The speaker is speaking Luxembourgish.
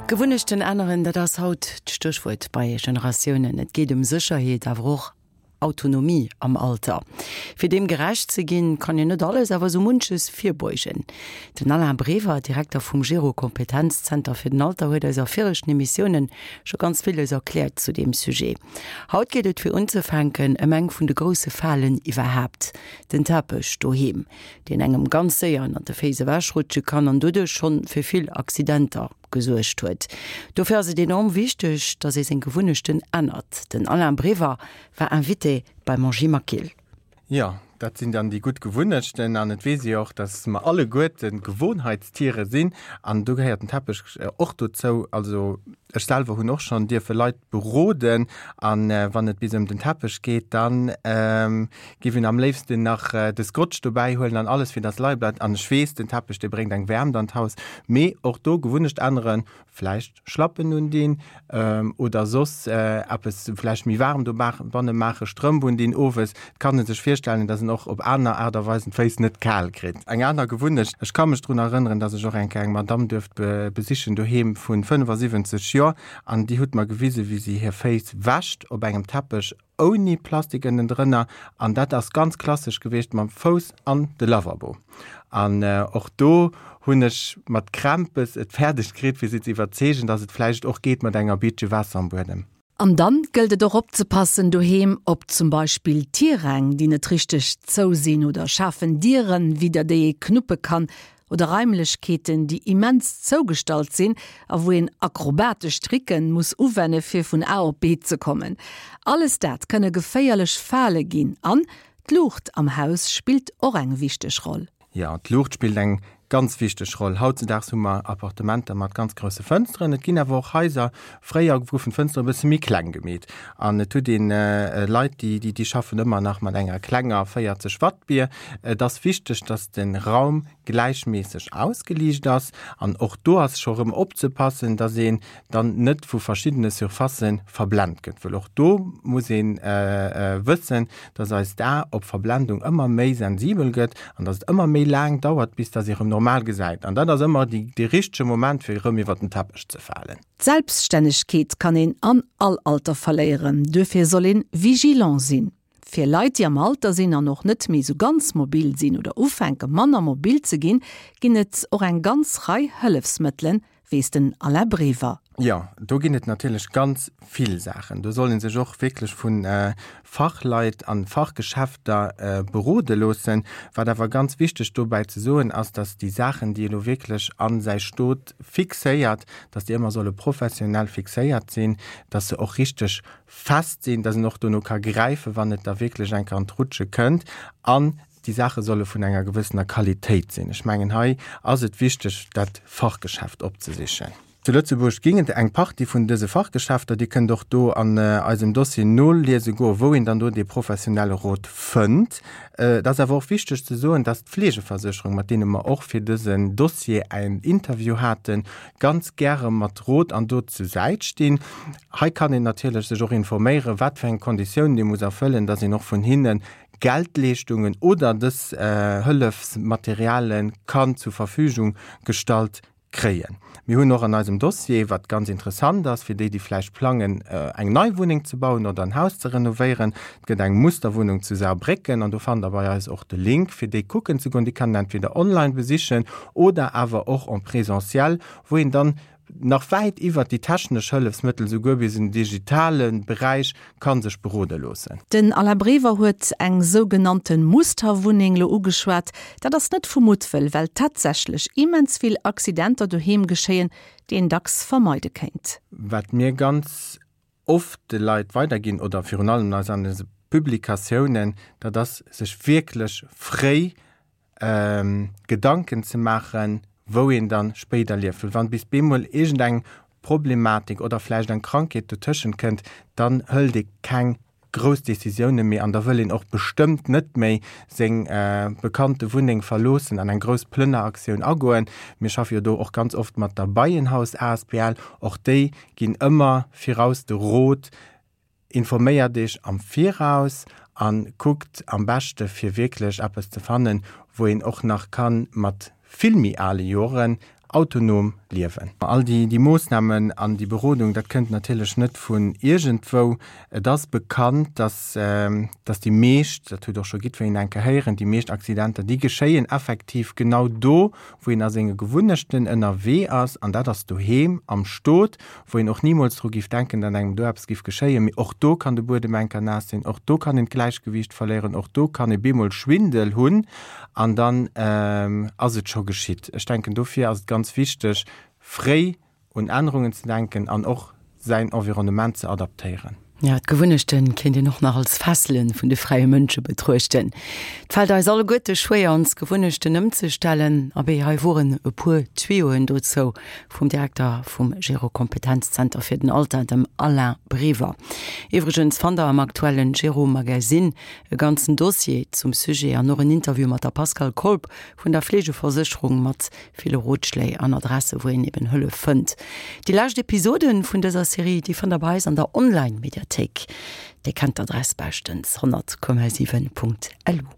Gewunnechten änneren, dat ass haut d'Stéchwuert bei Generatiounen. Et geet ëm Sécherheet, awer och Autonomie am Alter. Fir deem gerecht ze ginn, kann een net alles, awer esou munches virbeugen. Den Alain Brever, Direkter vum Gero Kompetenzzenter fir den Alter, huet eis a viregten Emissiounen scho ganz villes erkläert zu deem Sujet. Haut geet et fir unzefänken ëm eng vun de grousse Falen iwwerhaapt, den Teppech doheem, deen engem ganz séier ënnert de Féiss ewechrutsche kann an doduerch schonn fir vill Accidenter gesuergt huet. Dofir ass et enorm wichteg, dass ee seng Gewunnechten ännert. Den Alain Brever war Invité beim Angie Maquil. Jo, dat sinn dann déi gutt Gewunnechten an et weess ee jo och, dass mer alleguerte Gewohnheitstiere sinn an do gehéiert den Teppech och dozou. Also ech selwer hunn och schonn dierfe Leit beroden an wann et bis ëm den Teppech geet, dann Giff een am léifsten nach de Scotch dobäi huelen an alles fir dass leie bleift. An ech weess, den Teppech dee bréngt eng Wäermt an d'Haus, mee och do Gewunnecht änneren, vläicht Schlappen undinn oder soss eppes vläicht méi waarm dobanne maachen, Strëmp undinn owes. Et kann e sech virstellen, dass en och op aner Aart a Weisen d'Féiss net kal kritt. Eng aner Gewunnecht, ech ka mech drun erënneren, dass ech och eng Kéier eng Madamm duerft besichen doheem vu 75 Joer an déi huet mer gewisen, wéi si hir Féiss wäscht op engem Teppech ouni Plastik ënnendrënner an dat ass ganz klassesch gewiescht mam Fouss an de Lavabo. An och do hunn ech mat Krämpes et fäerdeg kritt fir si ze iwwerzeegen, dass et vläicht och geet mat enger Biitche Waasser am Buedem. An dann gëllt et och opzepassen doheem op zum Beispill Tiräng déi net richteg zou sinn oder schaarfen Dieren widder déi ee knuppe kann oder Raimlechkeeten, déi immens zougestallt sinn a wou een akrobatesch Tricken muss uwenne fir vun A op B ze kommen. Alles dat kënne geféierlech Fale ginn. An d'Luucht am Haus spillt och eng wichteg Roll. Jo, d'Luucht spillt eng ganz wichteg Roll. Hautzedaags hu mer Appartementer mat ganz grousse Fënsteren. Et ginn awer och Haiser, fréier goufen d'Fënsteren e bësse méi kleng gemeet. An et huet een Leit, déi, déi schaffen ëmmer nach mat enger klenger 40 Watt Bier. Et ass wichteg, dass de Raum gläichméisseg ausgeliicht ass. An och do ass scho rëm opzepassen, dass een dann net vu verschiddene Surfacë verblent gëtt, wëll och do muss ee wëssen, dass eist A op Verblendung ëmmer méi sensibel gëtt an dass et ëmmer méi laang dauert, bis dass ee rëm normal gesäit. An dat ass ëmmer dee richtege Moment, fir erëm iwwer den Teppech ze falen. D'Selbststännegkeet kann een an all Alter verléieren, duerfir soll een vigilant sinn. Fir Leit, déi am Alter sinn an och net méi sou ganz mobil sinn oder ufänke manner mobil ze ginn, ginn et och eng ganz Rei Hëllefsmëttelen, weess den Alain Brever. Jo, do ginn et natierlech ganz vill Saachen. Do soll ee sech och wierklech vu Fachleit an Fachgeschäfter berode loossen. Wat awer ganz wichteg dobäi ze soen ass, datt déi Saachen, déi elo wierklech a säi Stot fixéiert, datt déi ëmmer solle professionell fixéiert sinn, datt se och richteg fest sinn, dass en och dono ka gräifen, wann et da wierklech eng Kéier an d'Rutsche kënnt. An déi Saache solle vun enger gewëssener Qualitéit sinn. Ech mengen, hei ass et wichteg, dat Fachgeschäft opzesichen. Zu Lëtzebuerg ginn et eng Partie vun dëse Fachgeschäfter. Dir kënnt och do an eisem Dossier noliese goen, wou een dann do dee professionelle Rot fënnt. Et ass awer och wichteg ze soen, dass d'Fleegeversécherung, mat deene mer och fir dësen Dossier en Interview haten, ganz gäre mat Rot an Dot zu Säit stinn. Hei kann een natierlech sech och informéieren, wat fir eng Konditiounen ee muss erfëllen, dass een och vun hinne Geldleeschtungen oder dës Hëllefsmateriale kann zur Verfügung gestallt kréien. Mir hunn och an eisem Dossier, wat ganz interessant ass fir déi, déi vläicht plangen, eng nei Wunneng ze bauen oder en Haus ze renovéieren, et gëtt eng Musterwunnung zu Saarbrécken an do fannt Der bei eis och de Link, fir déi kucken ze goen. Déi kann een entweder online besichen oder awer och en présentiel, wou een dann nach wäit iwwert déi technesch Hëllefsmëttel, souguer bis en digitale Beräich ka sech berode loossen. Den Alain Brever huet eng sougenannte Musterwunneng lo ugeschwat. Dat ass net vu Muttwëll, well tatsächlech immens vill Accidenter doheem geschéien, déi een dacks vermeide kéint. Wat mir ganz oft de Leit weiderginn oder virun allem eis an eise Publikatiounen, dat ass sech wierklech fréi Gedanken ze maachen, wou een dann spéider lieft. Well wann bis bemol iergendeng Problematik oder vläicht eng Krankheet dotëschent kënnt, dann hëlt ee keng grouss Décisioune méi an da wëll een och bestëmmt net méi seng bekannte Wunneng verloossen an eng grouss Plënneraktioun agoen. Mir schaffe jo do och ganz oft mat der Beienhaus asbl. Och déi ginn ëmmer viraus de Rot, Informéiert Iech am Viraus a kuckt am beschte fir wierklech eppes ze fannen, wou een och nach ka mat vill méi ale Joren autonom. Liewen. All déi Moossnamen an déi Berodung, dat kënnt natierlech net vun iergendwou. Et ass bekannt, dass, dass déi meescht, dat huet och scho jiddwereen eng Kéier héieren, déi meescht Accidenter, déi geschéien effektiv genau do, wou een a senge Gewunnechten ënnerwee ass, an dat ass doheem am Stot, wou een och nimools dru giff denken, datt engem do eppes giff geschéien. Mee och do kann de Buedem enker naass sinn, och do kann een d'Gläichgewiicht verléieren, och do kann ee bemol Schwindel hunn an dann ass et scho geschitt. Ech denken, dofir ass et ganz wichteg, fréi un Ännerungen ze denken an och säin Environnement ze adaptéieren. Jo, d'Gewunnechte kéint een och nach als Fessele vun de fräie Mënsche betruechten. Et fält eis alleguerte schwéier, ons Gewunnechten ëmzestellen. Abee, hei woren e puer Tuyauxen dozou vum Direkter vum Gero-Kompetenzzenter fir den Alter, dem Alain Brever. Iwwregens fannt der am aktuellen Gero-Magazine e ganzen Dossier zum Sujet an och en Interview mat der Pascale Kolb vun der Fleegeversécherung mat ville Rotschléi an Adresse wou een eben Hëllef fënnt. Déi lescht Episoden vun dëser Serie, déi fannt der bei eis an der Online-Mediathéik. Dir kennt d'Adress beschtens, 100,7.lu.